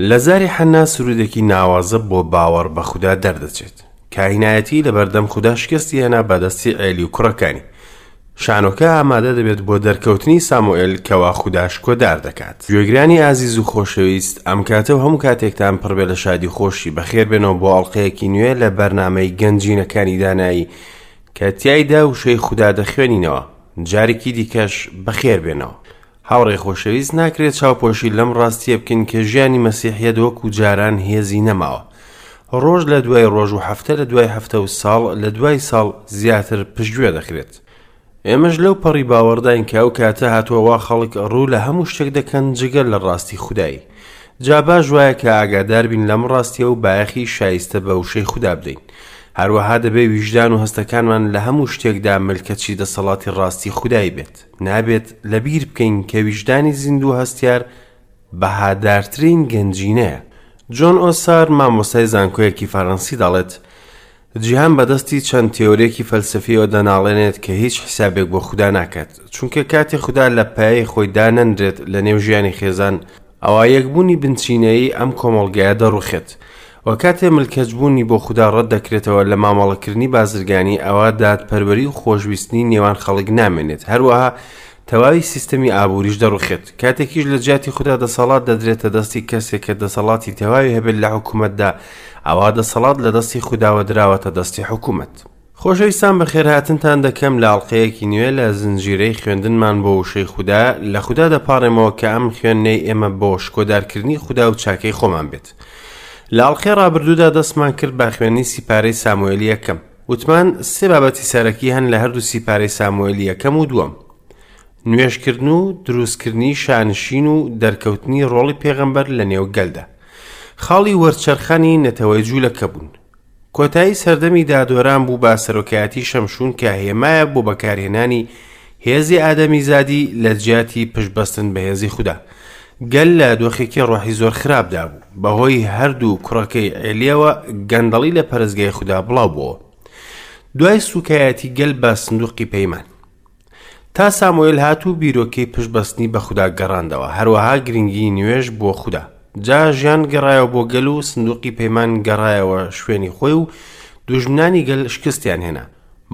لە زاری حەننا سروودێکی ناوازە بۆ باوەڕ بە خودا دەردەچێت. کاهینایەتی لەبەردەم خودا شکستی هێنا بە دەستی عێلی و کوڕەکانی. شانۆکە ئامادە دەبێت بۆ دەرکەوتنی ساموئێل کەوا خودا شکۆدار دەکات. گوێگرانی ئازیز و خۆشەویست، ئەم کاتە و هەموو کاتێکتان پڕ بێ لە شادی و خۆشی. بەخێربێنەوە بۆ ئەڵقەیەکی نوێ لە بەرنامەی گەنجینەکانی دانایی کە تیایدا وشەی خودا دەخوێنینەوە. جارێکی دیکەش بەخێربێنەوە. هاوڕێی خۆشەویست ناکرێت چاوپۆشی لەم ڕاستیە بکەین کە ژیانی مەسیحیەت وەکو جاران هێزی نەماوە. ڕۆژ لە دوای ڕۆژ و هەفتە لە دوای هەفتە و ساڵ لە دوای ساڵ زیاتر پشتگوێ دەخرێت. ئێمەش لەو پەڕی باوەڕداین کە ئەو کاتە هاتووە وا خەڵک ڕوو لە هەموو شتێک دەکەن جگە لە ڕاستی خودایی. جا باش وایە کە ئاگادار بین لەم ڕاستیە و بایەخی شایستە بە وشەی خودا بدەین. هەروەها دەبێ ویژدان و هەستەکانمان لە هەموو شتێکدا ملکەچی دەسەڵاتی ڕاستی خودایی بێت. نابێت لەبیر بکەین کە ویژدانی زیندوو و هەستیار بەهادارترین گەنجینەیە. جۆن ئۆسار، مامۆستای زانکۆیەکی فەرەنسی دەڵێت، جیهان بەدەستی چەند تێۆرێکی فەلسەفیەوە دەناڵێنێت کە هیچ حیسابێک بۆ خودا ناکات، چونکە کاتێ خودا لە پایەی خۆی دانەنرێت لە نێو ژیانی خێزان، ئەوا یەکبوونی بنچینەیی ئەم کۆمەڵگایە دەڕوخێت. وە کاتێ ملکەچبوونی بۆ خودا ڕەت دەکرێتەوە لە مامەڵەکردنی بازرگانی ئەوا دادپەروەری و خۆشویستنی نێوان خەڵک نامێنێت هەروەها تەواوی سیستەمی ئابووریش دەڕوخێت کاتێکیش لە جیاتی خودا دەسەڵات دەدرێتە دەستی کەسێک کە دەسەڵاتی تەواوی هەبێت لە حکوومەتدا ئەوا دەسەڵات لە دەستی خوداوە دراوەتە دەستی حکوومەت. خۆشەویستان بەخێرهاتنتان دەکەم لە ئەڵقەیەکی نوێ لە زنجیرەی خوێندنمان بۆ وشەی خودا لە خودا دەپاڕێمەوە کە ئەم خوێندنەی ئێمە بۆ شکۆدارکردنی خودا و چاکەی خۆمان بێت لە ئەڵقەی ڕابردوودا دەستمان کرد بە خوێندنی سیپارەی ساموئێلی یەکەم وتمان سێ بابەتی سەرەکی هەن لە هەردوو سیپارەی ساموئێلی یەکەم و دووەم نوێژکردن و دروستکردنی شانشین و دەرکەوتنی ڕۆڵی پێغەمبەر لە نێو گەلدا خاڵی وەرچەرخانی نەتەوەی جوولەکە بوون کۆتایی سەردەمی دادوەران بوو بە سەرۆکایەتی شەمشون کە هێمایە بۆ بەکارهێنانی هێزی ئادەمیزادی لە جیاتی پشتبەستن بە هێزی خودا. گەل لە دۆخێکی ڕۆحی زۆر خراپدا بوو. بەهۆی هەردوو کوڕەکەی عێلیەوە گەندەڵی لە پەرستگای خودا بڵاو بۆوە. دوای سوکایەتی گەل بە سندوقی پەیمان. تا ساموئێل هات و بیرۆکەی پشتبەستنی بە خودا گەڕاندەوە، هەروەها گرنگیی نوێژ بۆ خودا. جا ژیان گەڕایەوە بۆ گەل و سندوقی پەیمان گەڕایەوە شوێنی خۆی و دوژمنانی گەل شکستیان هێنا.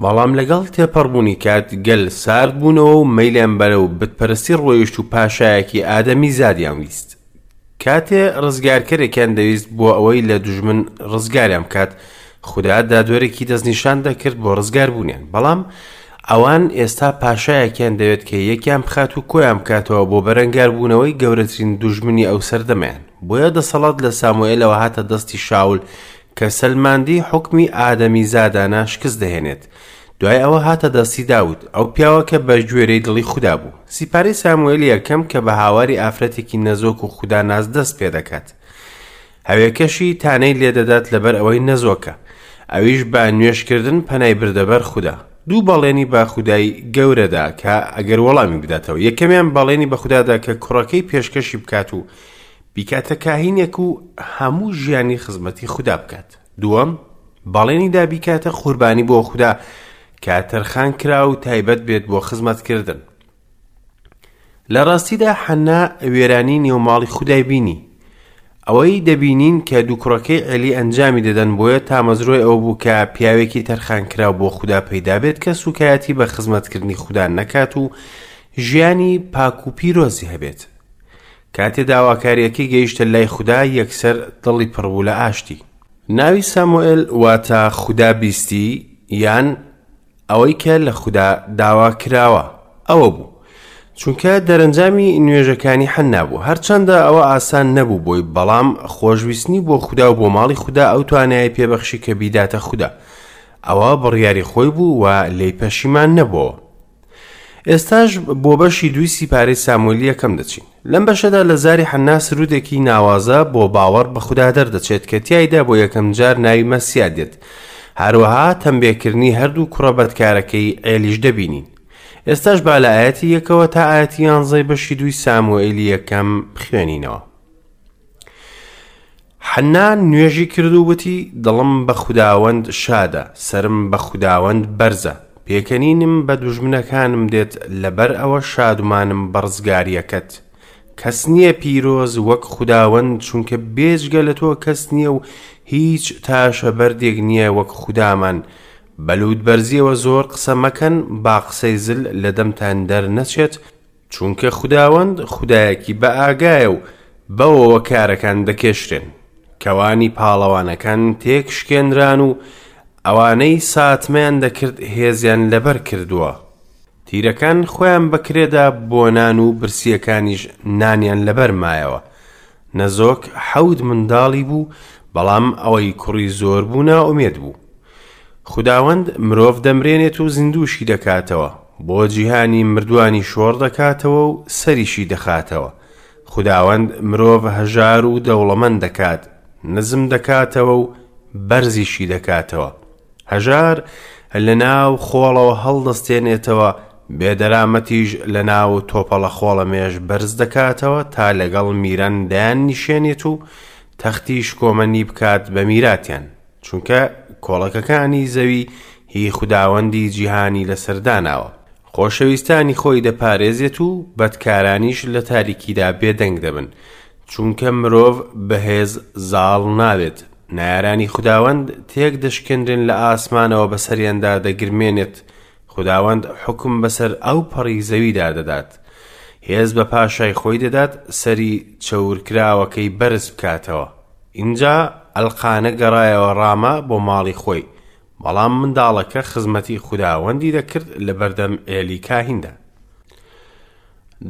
بەڵام لەگەڵ تێپەڕبوونی کات گەل سارد بوونەوە و مەیلیان بەرەو بتپەرستی ڕۆیشت و پاشایەکی ئادەمیزادیان ویست. کاتێ ڕزگارکەرێکیان دەویست بۆ ئەوەی لە دوژمن ڕزگاریان بکات، خودا دادوەرێکی دەستنیشان دەکرد بۆ ڕزگاربوونیان. بەڵام ئەوان ئێستا پاشایەکیان دەوێت کە یەکیان بخات و کۆیان بکاتەوە بۆ بەرەنگاربوونەوەی گەورەترین دوژمنی ئەو سەردەمەیان. بۆیە دەسەڵات لە ساموئێلەوە هاتە دەستی شاول کە سەلماندی حوکمی ئادەمیزادانە شکست دەهێنێت. دوای ئەوە هاتە دەستی داود، ئەو پیاوە کە بە گوێرەی دڵی خودا بوو. سیپارەی ساموئێلی یەکەم کە بە هاواری ئافرەتێکی نەزۆک و خوداناس دەست پێ دەکات. هەوێکەشی تانەی لێ دەدات لەبەر ئەوەی نەزۆکە. ئەویش بە نوێژکردن پەنای بردە بەر خودا. دوو بەڵێنی بە خودای گەورە دا کە ئەگەر وەڵامی بداتەوە. یەکەمیان بەڵێنی بە خودا دا کە کوڕەکەی پێشکەشی بکات و بیکاتە کاهینێک و هەموو ژیانی خزمەتی خودا بکات. دووەم، بەڵێنی دا بیکاتە قوربانی بۆ خودا کە تەرخان کرا و تایبەت بێت بۆ خزمەتکردن. لە ڕاستیدا حەنا وێرانی نێو ماڵی خودای بینی. ئەوەی دەبینین کە دوو کوڕەکەی عێلی ئەنجامی دەدەن بۆیە تامەزرۆی ئەوە بوو کە پیاوێکی تەرخانکراو بۆ خودا پەیدا بێت کە سوکایەتی بە خزمەتکردنی خودا نەکات و ژیانی پاک و پیرۆزی هەبێت. کاتێ داواکارییەکەی گەیشتە لای خودا یەکسەر دڵی پڕ بوو لە ئاشتی. ناوی ساموئێل واتە خودا بیستی یان ئەوەی کە لە خودا داوا کراوە ئەوە بوو. چونکە دەرەنجامی نوێژەکانی حەننا بوو. هەرچەندە ئەوە ئاسان نەبوو بۆی بەڵام خۆشویستنی بۆ خودا و بۆ ماڵی خودا ئەو توانایەی پێبەخشی کە بیداتە خودا. ئەوە بڕیاری خۆی بوو و لێی پەشیمان نەبۆوە. ئێستاش بۆ بەشی دووی سیپارەی ساموئێلی یەکەم دەچین. لەم بەشەدا لە زاری حەننا سروودێکی ناوازە بۆ باوەڕ بە خودا دەردەچێت کە تیایدا بۆیەکەم جار ناوی مەسیا دێت. هەروەها تەمبێکردنی هەردوو کوڕە بەدکارەکەی عێلیش دەبینین. ئێستاش با لە ئایەتی یەکەوە تا ئایەتی یانزەی بەشی دووی ساموئێلی یەکەم بخوێنینەوە. حەننا نوێژی کرد و وتی، دڵم بە خوداوەند شادە، سەرم بە خوداوەند بەرزە. پێکەنینم بە دوژمنەکانم دێت، لەبەر ئەوە شادومانم بە ڕزگارییەکەت. کەس نییە پیرۆز وەک خوداوەند، چونکە بێجگە لە تۆ کەس نییە و هیچ تاشە بەردێک نییە وەک خودامان. بە لووتبەرزییەوە زۆر قسە مەکەن، با قسەی زل لە دەمتان دەرنەچێت، چونکە خوداوەند خودایەکی بەئاگایە و بەوەوە کارەکان دەکێشرێن. کەوانی پاڵەوانەکان تێکشکێنران و ئەوانەی ساتمەیان دەکرد هێزیان لەبەر کردووە. تیرەکان خۆیان بە کرێدا بۆ نان و برسییەکانیش نانیان لەبەر مایەوە. نەزۆک حەوت منداڵی بوو، بەڵام ئەوەی کوڕی زۆر بوو نائومێد بوو. خوداوەند مرۆڤ دەمرێنێت و زیندووشی دەکاتەوە، بۆ جیهانی مردووانی شۆڕ دەکاتەوە و سەریشی دەخاتەوە. خوداوەند مرۆڤ هەژار و دەوڵەمەند دەکات، نزم دەکاتەوە و بەرزیشی دەکاتەوە. هەژار لە ناو خۆڵەوە هەڵدەستێنێتەوە، بێدەرامەتیش لە ناو تۆپەڵە خۆڵەمێش بەرز دەکاتەوە تا لەگەڵ میران دایاننیشێنێت و تەختی شکۆمەنی بکات بە میراتیان. چونکە کۆڵەکەکانی زەوی هی خوداوەندی جیهانی لەسەر داناوە. خۆشەویستانی خۆی دەپارێزێت و بەدکارانیش لە تاریکیدا بێدەنگ دەبن، چونکە مرۆڤ بە هێز زاڵ نابێت. نەیارانی خوداوەند تێک دەشکێنرێن لە ئاسمانەوە بەسەریاندا دەگرمێنێت، خوداوەند حوکم بەسەر ئەو پەڕی زەویدا دەدات. هێز بە پاشای خۆی دەدات سەری چەورکراوەکەی بەرز بکاتەوە. ئینجا ئەلقانە گەڕایەوە ڕامە بۆ ماڵی خۆی، بەڵام منداڵەکە خزمەتی خوداوەندی دەکرد لەبەردەم عێلی کاهیندا.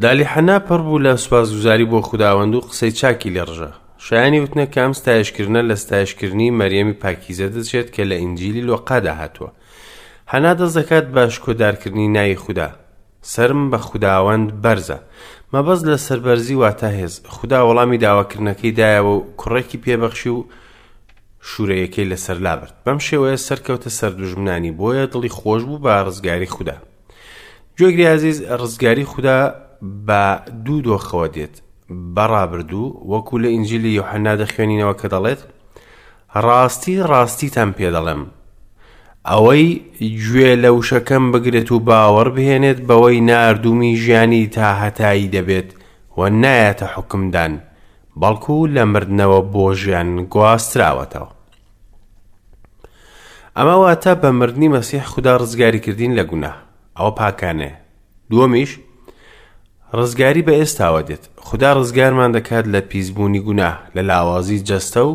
دالی حەنا پڕ بوو لە سوپاسگوزاری بۆ خوداوەند و قسەی چاکی لێ ڕژا. شایانی وتنە کە ئەم ستایشکردنە لە ستایشکردنی مەریەمی پاکیزە دەچێت کە لە ئینجیلی لۆقادا هاتووە. حەنا دەست دەکات بە شکۆدارکردنی ناوی خودا. سەرم بە خوداوەند بەرزە. مەبەست لە سەربەرزی واتە هێز. خودا وەڵامی داواکردنەکەی دایەوە و کوڕێکی پێبەخشی و شوورەیەکەی لەسەر لابرد. بەم شێوەیە سەرکەوتە سەر دوژمنانی، بۆیە دڵی خۆش بوو بە ڕزگاری خودا. گوێگری ئازیز، ڕزگاری خودا بە دوو دۆخەوە دێت، بە ڕابردوو، وەکو لە ئینجیلی یۆحەنا دەخوێنینەوە کە دەڵێت، ڕاستی ڕاستیتان پێ دەڵێم، ئەوەی گوێ لە وشەکەم بگرێت و باوەڕ بهێنێت بەوەی ناردوومی ژیانی تاهەتایی دەبێت و نایەتە حوکمدان، بەڵکو لە مردنەوە بۆ ژیان گواستراوەتەوە. ئەمە واتە بە مردنی مەسیح خودا ڕزگاری کردین لە گوناه. ئەوە پاکانەیە. دووەمیش ڕزگاری بە ئێستاوە دێت. خودا ڕزگارمان دەکات لە پیسبوونی گوناه، لە لاوازی جەستە و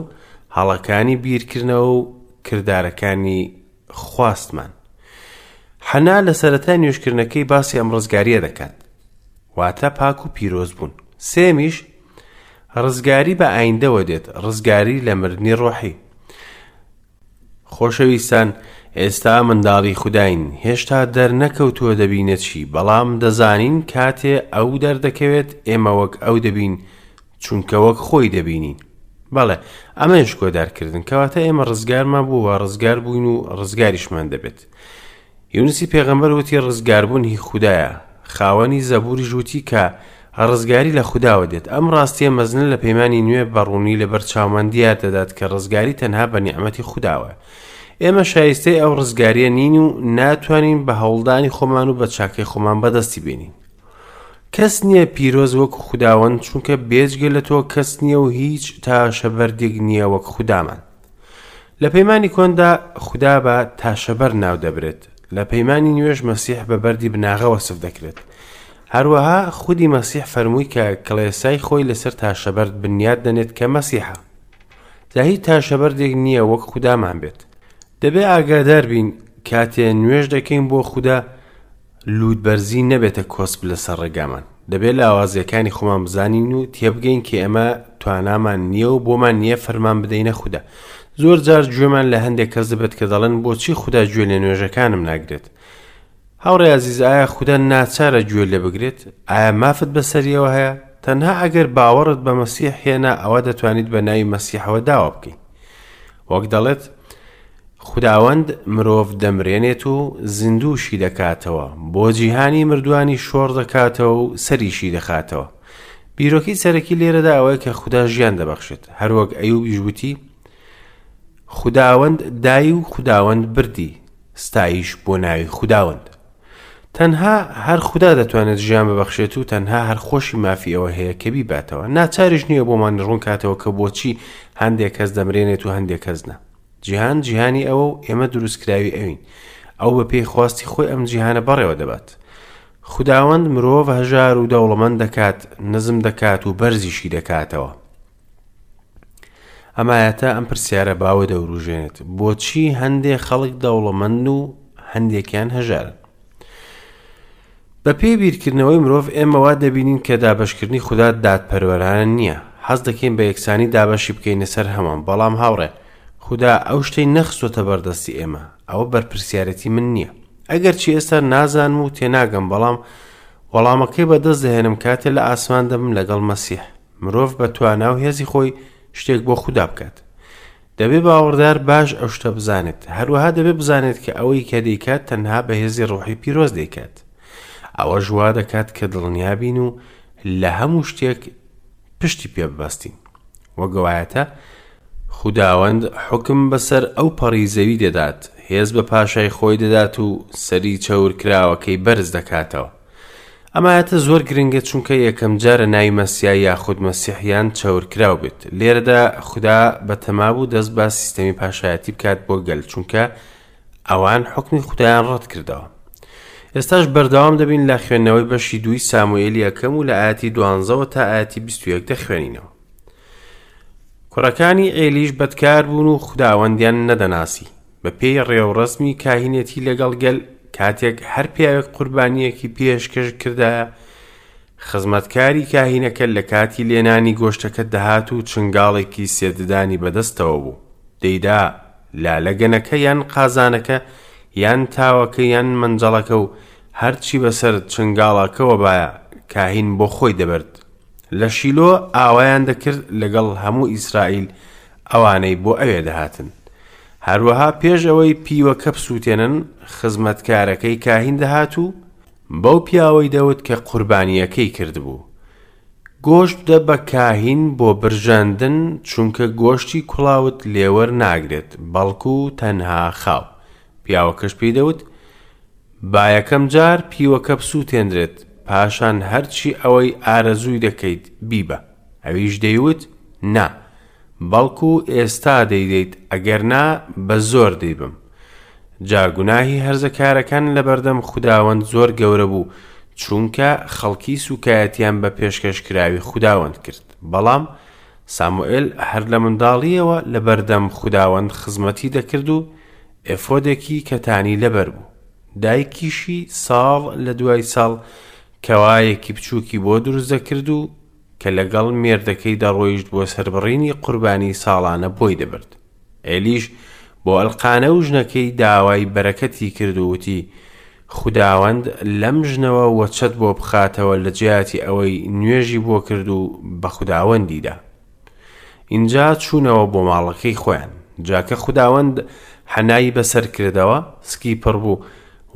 هەڵەکانی بیرکردنەوە و کردارەکانی خواستمان. حەنا لە سەرەتای نوێژکردنەکەی باسی ئەم ڕزگاریە دەکات. واتە پاک و پیرۆز بوون. سێمیش ڕزگاری بە ئایندەوە دێت، ڕزگاری لە مردنی ڕۆحی. خۆشەویستان، ئێستا منداڵی خوداین، هێشتا دەرنەکەوتووە دەبینە چی، بەڵام دەزانین کاتێ ئەو دەردەکەوێت ئێمە وەک ئەو دەبین، چونکە وەک خۆی دەبینین. بەڵێ، ئەمەیە شکۆدارکردن، کەواتە ئێمە ڕزگارمان بوو و ڕزگار بووین و ڕزگاریشمان دەبێت. یونسی پێغەمبەر وتی ڕزگاربوون هی خودایە. خاوەنی زەبوریش وتی کە ڕزگاری لە خوداوە دێت. ئەم ڕاستیە مەزنە لە پەیمانی نوێ بە ڕوونی لەبەر چاومان دیار دەدات کە ڕزگاری تەنها بە نیعمەتی خوداوەیە. ئێمە شایستەی ئەو ڕزگاریە نین و ناتوانین بە هەوڵدانی خۆمان و بە چاکەی خۆمان بەدەستی بێنین. کەس نییە پیرۆز وەکو خوداوەند چونکە بێجگە لە تۆ کەس نییە و هیچ تاشە بەردێک نییە وەک خودامان. لە پەیمانی کۆندا خودا بە تاشەبەر ناو دەبرێت، لە پەیمانی نوێش مەسیح بە بەردی بناغە وەسف دەکرێت. هەروەها خودی مەسیح فەرمووی کە کڵێسای خۆی لەسەر تاشەبەرد بنیات دەنێت کە مەسیحە. جا هیچ تاشەبەردێک نییە وەک خودامان بێت. دەبێ ئاگادار بین کاتێ نوێژ دەکەین بۆ خودا لووتبەرزی نەبێتە کۆسپ لەسەر ڕێگامان. دەبێ لاوازییەکانی خۆمان بزانین و تێبگەین کە ئێمە توانامان نییە و بۆمان نییە فەرمان بدەینە خودا. زۆر جار گوێمان لە هەندێک کەس دەبێت کە دەڵێن بۆچی خودا گوێ لە نوێژەکانم ناگرێت؟ هاوڕێ ئازیز ئایا خودا ناچارە گوێ لێ بگرێت؟ ئایا مافت بەسەریەوە هەیە؟ تەنها ئەگەر باوەڕت بە مەسیح هێنا ئەوە دەتوانیت بە ناوی مەسیحەوە داوا بکەیت. وەک دەڵێت خوداوەند مرۆڤ دەمرێنێت و زیندووشی دەکاتەوە، بۆ جیهانی مردووانی شۆڕ دەکاتەوە و سەریشی دەخاتەوە. بیرۆکەی سەرەکی لێرەدا ئەوەیە کە خودا ژیان دەبەخشێت، هەروەک ئەیوبیش وتی، خوداوەند دای و خوداوەند بردی، ستایش بۆ ناوی خوداوەند. تەنها هەر خودا دەتوانێت ژیان ببەخشێت و تەنها هەر خۆشی مافی ئەوە هەیە کە بیباتەوە. ناچاریش نییە بۆمان ڕوونکاتەوە کە بۆچی هەندێک کەس دەمرێنێت و هەندێک کەس نا. جیهان جیهانی ئەوە و ئێمە دروستکراوی ئەوین. ئەو بە پێی خواستی خۆی ئەم جیهانە بەڕێوە دەبات. خوداوەند مرۆڤ هەژار و دەوڵەمەند دەکات، نزم دەکات و بەرزیشی دەکاتەوە. ئەم ئایەتە ئەم پرسیارە باوە دەوروژێنێت، بۆچی هەندێ خەڵک دەوڵەمەندن و هەندێکیان هەژارن؟ بەپێی بیرکردنەوەی مرۆڤ ئێمە وا دەبینین کە دابەشکردنی خودا دادپەروەرانە نییە. حەز دەکەین بە یەکسانی دابەشی بکەینە سەر هەمووان، بەڵام هاوڕێ، خودا ئەو شتەی نەخستۆتە بەردەستی ئێمە. ئەوە بەرپرسیارێتی من نییە. ئەگەرچی ئێستا نازانم و تێناگەم، بەڵام وەڵامەکەی بەدەست دەهێنم کاتێ لە ئاسمان دەبم لەگەڵ مەسیح. مرۆڤ بە توانا و هێزی خۆی شتێک بۆ خودا بکات. دەبێ باوەڕدار باش ئەو شتە بزانێت. هەروەها دەبێ بزانێت کە ئەوەی کە دەیکات تەنها بە هێزی ڕۆحی پیرۆز دەیکات. ئەوەش وا دەکات کە دڵنیا بین و لە هەموو شتێک پشتی پێ ببەستین. وەک ئەوایەتە خوداوەند حوکم بەسەر ئەو پەڕی زەوی دەدات، هێز بە پاشای خۆی دەدات و سەری چەورکراوەکەی بەرز دەکاتەوە. ئەم ئایەتە زۆر گرنگە چونکە یەکەم جارە ناوی مەسیا یاخود مەسیح یان چەورکراو بێت. لێرەدا خودا بەتەما بوو دەست بە سیستەمی پاشایەتی بکات بۆ گەل چونکە ئەوان حوکمی خودایان ڕەت کردەوە. ئێستاش بەردەوام دەبین لە خوێندنەوەی بەشی دووی ساموئێلی یەکەم و لە ئایەتی دوانزەوە تا ئایەتی 21 دەخوێنینەوە. کوڕەکانی عێلیش بەدکار بوون و خوداوەندیان نەدەناسی. بە پێی ڕێوڕەسمی کاهینێتی لەگەڵ گەل، کاتێک هەر پیاوێک قوربانییەکی پێشکەش کردایە، خزمەتکاری کاهینەکە لە کاتی لێنانی گۆشتەکە دەهات و چنگاڵێکی سێ ددانی بەدەستەوە بوو، دەیدا لە لەگەنەکە یان قازانەکە یان تاوەکە یان مەنجەڵەکە و هەرچی بەسەر چنگاڵەکەوە بایە کاهین بۆ خۆی دەبرد. لە شیلۆ ئاوایان دەکرد لەگەڵ هەموو ئیسرائیل ئەوانەی بۆ ئەوێ دەهاتن. هەروەها پێش ئەوەی پیوەکە بسووتێنن، خزمەتکارەکەی کاهین دەهات و بەو پیاوەی دەوت کە قوربانییەکەی کردبوو، گۆشت بدە بە کاهین بۆ برژاندن، چونکە گۆشتی کوڵاوت لێ وەرناگرێت، بەڵکو تەنها خاو. پیاوەکەش پێی دەوت، با یەکەم جار پیوەکە بسووتێنرێت، پاشان هەرچی ئەوەی ئارەزووی دەکەیت بیبە. ئەویش دەیوت، نا، بەڵکو ئێستا دەیدەیت، ئەگەر نا بە زۆر دەیبەم. جا گوناهی هەرزەکارەکان لەبەردەم خوداوەند زۆر گەورە بوو، چونکە خەڵکی سووکایەتیان بە پێشکەشکراوی خوداوەند کرد. بەڵام ساموئێل هەر لە منداڵییەوە لەبەردەم خوداوەند خزمەتی دەکرد و ئێفۆدێکی کەتانی لەبەر بوو. دایکیشی ساڵ لە دوای ساڵ کەوایەکی بچووکی بۆ دروست دەکرد و کە لەگەڵ مێردەکەی دەڕۆیشت بۆ سەربڕینی قوربانی ساڵانە بۆی دەبرد. ئێلیش بۆ ئەلقانە و ژنەکەی داوای بەرەکەتی کرد و وتی، خوداوەند لەم ژنەوە وەچەت بۆ بخاتەوە لە جیاتی ئەوەی نوێژی بۆ کرد و بە خوداوەندی دا. ئینجا چوونەوە بۆ ماڵەکەی خۆیان. جا کە خوداوەند حەنای بەسەر کردەوە، سکی پڕ بوو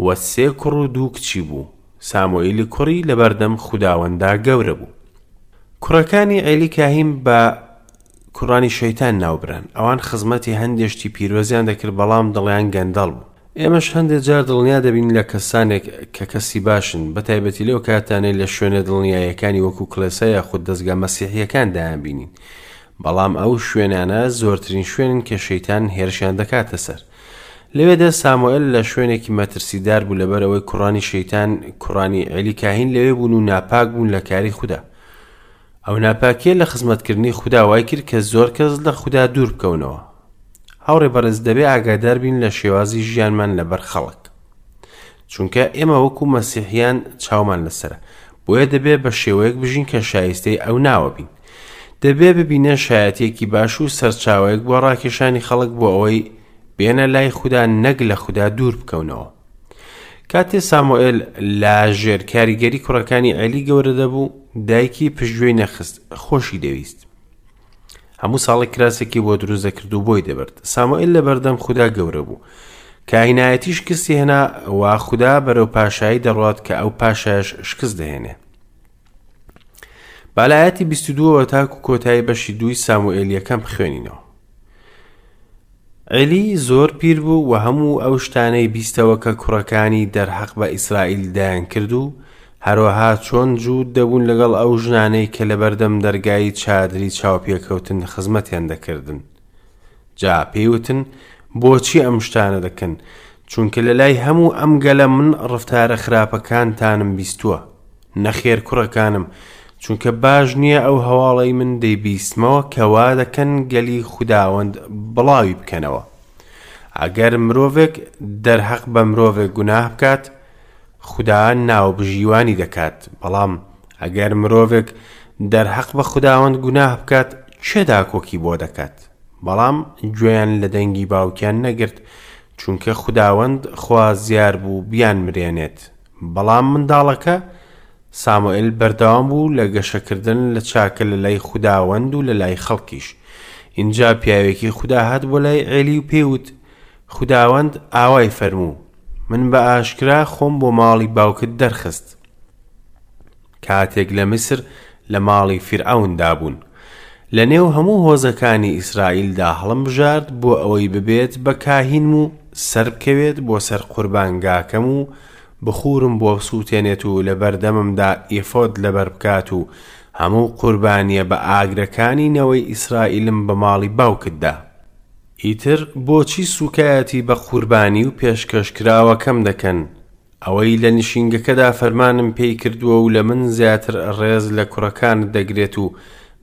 و سێ کوڕ و دوو کچی بوو. ساموئیلی کوڕی لەبەردەم خوداوەندا گەورە بوو. کوڕەکانی عێلی کاهین بە کوڕانی شەیتان ناوبران. ئەوان خزمەتی هەندێ شتی پیرۆزیان دەکرد، بەڵام دڵیان گەندەڵ بوو. ئێمەش هەندێ جار دڵنیا دەبین لە کەسانێک کە کەسی باشن، بە تایبەتی لەو کاتانەی لە شوێنە دڵنیاییەکانی وەکو کڵێسا یاخود دەزگا مەسیحییەکان دەیانبینین. بەڵام ئەو شوێنانە زۆرترین شوێنن کە شەیتان هێرشیان دەکاتە سەر. لەوێدا ساموئێل لە شوێنێکی مەترسیدار بوو لەبەر ئەوەی کوڕانی شەیتان، کوڕانی عێلی کاهین لەوێ بوون و ناپاک بوون لە کاری خودا. ئەو ناپاکیە لە خزمەتکردنی خودا وای کرد کە زۆر کەس لە خودا دوور بکەونەوە. هاوڕێ بەڕێز دەبێ ئاگادار بین لە شێوازی ژیانمان لەبەر خەڵک. چونکە ئێمە وەکو مەسیحیان چاومان لەسەرە. بۆیە دەبێ بە شێوەیەک بژین کە شایستەی ئەو ناوە بین. دەبێ ببینە شایەتێکی باش و سەرچاوەیەک بۆ ڕاکێشانی خەڵک بۆ ئەوەی بێنە لای خودا نەک لە خودا دوور بکەونەوە. کاتێ سامۆئێل لە ژێر کاریگەری کوڕەکانی عێلی گەورە دەبوو، دایکی پشتگوێی نەخست، خۆشی دەویست. هەموو ساڵێک کراسێکی بۆ دروست دەکرد و بۆی دەبرد. سامۆئێل لە بەردەم خودا گەورە بوو. کاهینایەتی شکستی هێنا و خودا بەرەو پاشایی دەڕوات کە ئەو پاشایش شکست دەهێنێ. با لە ئاەتی 22ەوە تاکو کۆتایی بەشی دووی ساموئێل یەکەم بخوێنینەوە. عێلی زۆر پیر بوو و هەموو ئەو شتانەی بیستەوە کە کوڕەکانی دەرحەق بە ئیسرائیل دەیانکرد و هەروەها چۆن جووت دەبوون لەگەڵ ئەو ژنانەی کە لەبەردەم دەرگای چادری چاوپێکەوتن خزمەتیان دەکردن. جا پێی وتن، بۆچی ئەم شتانە دەکەن؟ چونکە لە لای هەموو ئەم گەلە من ڕەفتارە خراپەکانتانم بیستووە. نەخێر کوڕەکانم، چونکە باش نییە ئەو هەواڵەی من دەیبیستمەوە کە وا دەکەن گەلی خوداوەند بڵاوی بکەنەوە. ئەگەر مرۆڤێک دەرهەق بە مرۆڤێک گوناه بکات، خودا ناوبژیوانی دەکات، بەڵام ئەگەر مرۆڤێک دەرهەق بە خوداوەند گوناه بکات، کێ داکۆکی بۆ دەکات؟ بەڵام گوێیان لە دەنگی باوکیان نەگرت، چونکە خوداوەند خوازیار بوو بیانمرێنێت. بەڵام منداڵەکە، ساموئێل بەردەوام بوو لە گەشەکردن لە چاکە لە لای خوداوەند و لە لای خەڵکیش. ئینجا پیاوێکی خودا هات بۆ لای عێلی و پێی وت، خوداوەند ئاوای فەرموو، من بە ئاشکرا خۆم بۆ ماڵی باوکت دەرخست، کاتێک لە میسر لە ماڵی فیرعەوندا بوون. لە نێو هەموو هۆزەکانی ئیسرائیلدا هەڵمبژارد بۆ ئەوەی ببێت بە کاهینم و سەربکەوێت بۆ سەر قوربانگاکەم و بخوورم بۆ بسووتێنێت و لەبەردەممدا ئێفۆد لەبەر بکات و هەموو قوربانییە بە ئاگرەکانی نەوەی ئیسرائیلم بە ماڵی باوکت دا. ئیتر بۆچی سووکایەتی بە قوربانی و پێشکەشکراوەکەم دەکەن، ئەوەی لە نشینگەکەدا فەرمانم پێی کردووە و لە من زیاتر ڕێز لە کوڕەکانت دەگرێت و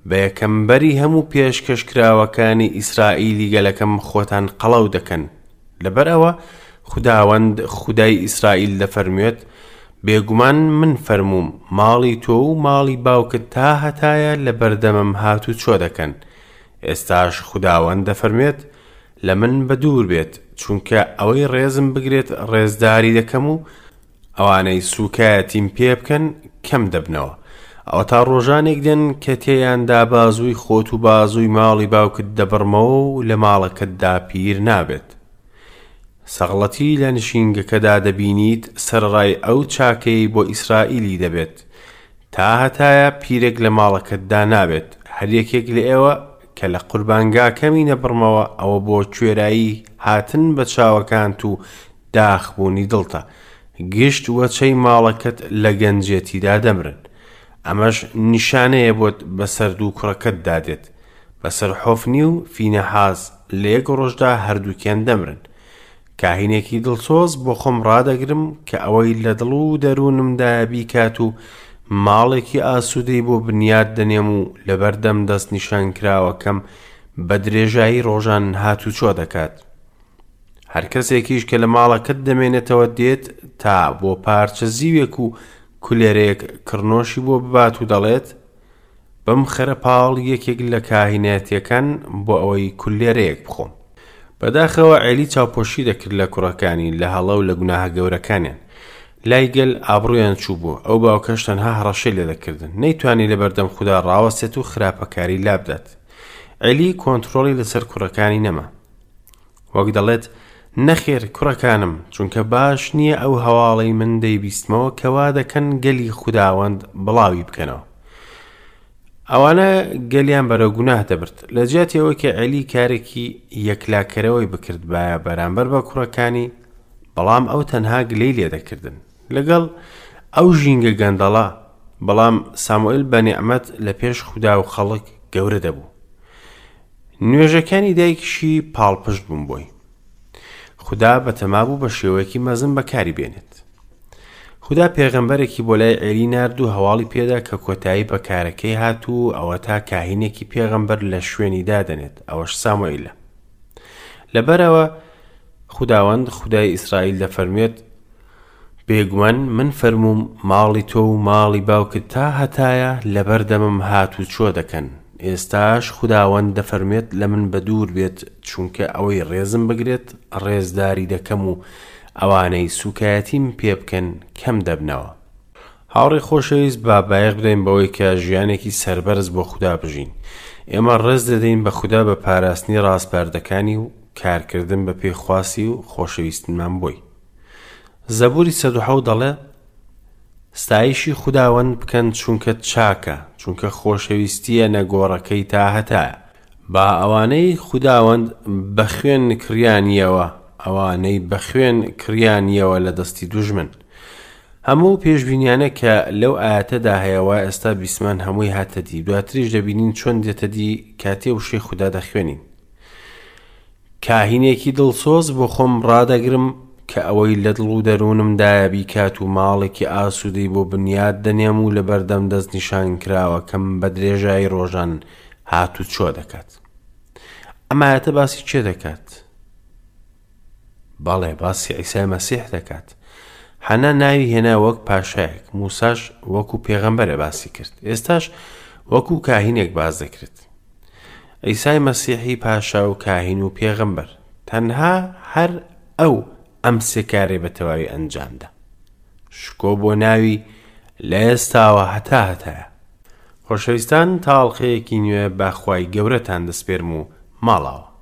بە یەکەم بەری هەموو پێشکەشکراوەکانی ئیسرائیلی گەلەکەم خۆتان قەڵەو دەکەن؟ لەبەر ئەوە خوداوەند خودای ئیسرائیل دەفەرموێت، بێگومان من فەرمووم، ماڵی تۆ و ماڵی باوکت تاهەتایە لەبەردەمم هاتوچۆ دەکەن. ئێستاش خوداوەند دەفەرموێت، لە من بەدوور بێت، چونکە ئەوەی ڕێزم بگرێت ڕێزداری دەکەم و ئەوانەی سووکایەتیم پێ بکەن کەم دەبنەوە. ئەوەتا ڕۆژانێک دێن کە تێیاندا بازووی خۆت و بازووی ماڵی باوکت دەبڕمەوە و لە ماڵەکەتدا پیر نابێت. سەغڵەتی لە نشینگەکەدا دەبینیت سەرەڕای ئەو چاکەیەی بۆ ئیسرائیلی دەبێت. تاهەتایە پیرێک لە ماڵەکەتدا نابێت، هەر یەکێک لە ئێوە کە لە قوربانگاکەمی نەبڕمەوە ئەوە بۆ کوێرایی هاتن بە چاوەکانت و داخبوونی دڵتە، گشت وەچەی ماڵەکەت لە گەنجێتیدا دەمرن. ئەمەش نیشانەیە بۆت بەسەر دوو کوڕەکەتدا دێت، بەسەر حۆفنی و فینەحاس، لە یەک ڕۆژدا هەردووکیان دەمرن. کاهینێکی دڵسۆز بۆ خۆم ڕادەگرم کە ئەوەی لە دڵ و دەروونمدایە بیکات و ماڵێکی ئاسوودەی بۆ بنیات دەنێم و لەبەردەم دەستنیشانکراوەکەم بە درێژایی ڕۆژان هاتوچۆ دەکات. هەر کەسێکیش کە لە ماڵەکەت دەمێنێتەوە دێت تا بۆ پارچە زیوێک و کولێرەیەک کڕنۆشی بۆ ببات و دەڵێت، بمخەرە پاڵ یەکێک لە کاهینەتیەکان بۆ ئەوەی کولێرەیەک بخۆم. بەداخەوە عێلی چاوپۆشی دەکرد لە کوڕەکانی لە هەڵە و لە گوناهە گەورەکانیان. لای گەل ئابڕویان چووبوو، ئەو باوکەش تەنها هەڕەشەی لێدەکردن. نەیتوانی لەبەردەم خودا ڕاوەستێت و خراپەکاری لابدات. عێلی کۆنترۆڵی لەسەر کوڕەکانی نەما. وەک دەڵێت، نەخێر کوڕەکانم، چونکە باش نییە ئەو هەواڵەی من دەیبیستمەوە کە وا دەکەن گەلی خوداوەند بڵاوی بکەنەوە. ئەوانە گەلیان بەرەو گوناه دەبرد. لە جیاتی ئەوەی کە عێلی کارێکی یەکلاکەرەوەی بکردبایە بەرامبەر بە کوڕەکانی، بەڵام ئەو تەنها گلەی لێدەکردن. لەگەڵ ئەو ژینگە گەندەڵە، بەڵام ساموئێل بە نیعمەت لە پێش خودا و خەڵک گەورە دەبوو. نوێژەکانی دایکیشی پاڵپشت بوون بۆی. خودا بەتەما بوو بە شێوەیەکی مەزن بەکاری بێنێت. خودا پێغەمبەرێکی بۆ لای عێلی نارد و هەواڵی پێدا کە کۆتایی بە کارەکەی هات و ئەوەتا کاهینێکی پێغەمبەر لە شوێنی دادەنێت، ئەوەش ساموئیلە. لەبەرئەوە خوداوەند خودای ئیسرائیل دەفەرموێت، بێگومان من فەرمووم ماڵی تۆ و ماڵی باوکت تا هەتایە لەبەردەمم هاتوچۆ دەکەن، ئێستاش خوداوەند دەفەرموێت لە من بەدوور بێت، چونکە ئەوەی ڕێزم بگرێت ڕێزداری دەکەم و ئەوانەی سووکایەتیم پێ بکەن کەم دەبنەوە. هاوڕێی خۆشەویست با بایەخ بدەین بەوەی کە ژیانێکی سەربەرز بۆ خودا بژین. ئێمە ڕێز دەدەین بە خودا بە پاراستنی ڕاسپاردەکانی و کارکردن بە پێی خواستی و خۆشەویستنمان بۆی. زەبوری 107 دەڵێ، ستایشی خوداوەند بکەن چونکە چاکە، چونکە خۆشەویستییە نەگۆڕەکەی تاهەتایە. با ئەوانەی خوداوەند بە خوێن کڕیانیەوە، ئەوانەی بە خوێن کڕیانیەوە لە دەستی دوژمن. هەموو پێشبینیانە کە لەو ئایەتەدا هەیە وا ئێستا بیستمان هەمووی هاتە دی، دواتریش دەبینین چۆن دێتە دی کاتێ وشەی خودا دەخوێنین. کاهینێکی دڵسۆز بۆ خۆم ڕادەگرم کە ئەوەی لە دڵ و دەروونمدایە بیکات و ماڵێکی ئاسوودەی بۆ بنیات دەنێم و لەبەردەم دەستنیشانکراوەکەم بە درێژایی ڕۆژان هاتوچۆ دەکات. ئەم ئایەتە باسی کێ دەکات؟ بەڵێ باسی عیسای مەسیح دەکات. حەنا ناوی هێنا وەک پاشایەک، موساش وەکو پێغەمبەرە باسی کرد. ئێستاش وەکو کاهینێک باس دەکرێت. عیسای مەسیحی پاشا و کاهین و پێغەمبەر. تەنها هەر ئەو ئەم سێ کارەی بە تەواوی ئەنجامدا. شکۆ بۆ ناوی لە ئێستاوە هەتا هەتایە. خۆشەویستان تا ئەڵقەیەکی نوێ بە خوای گەورەتان دەسپێرم و ماڵاوە.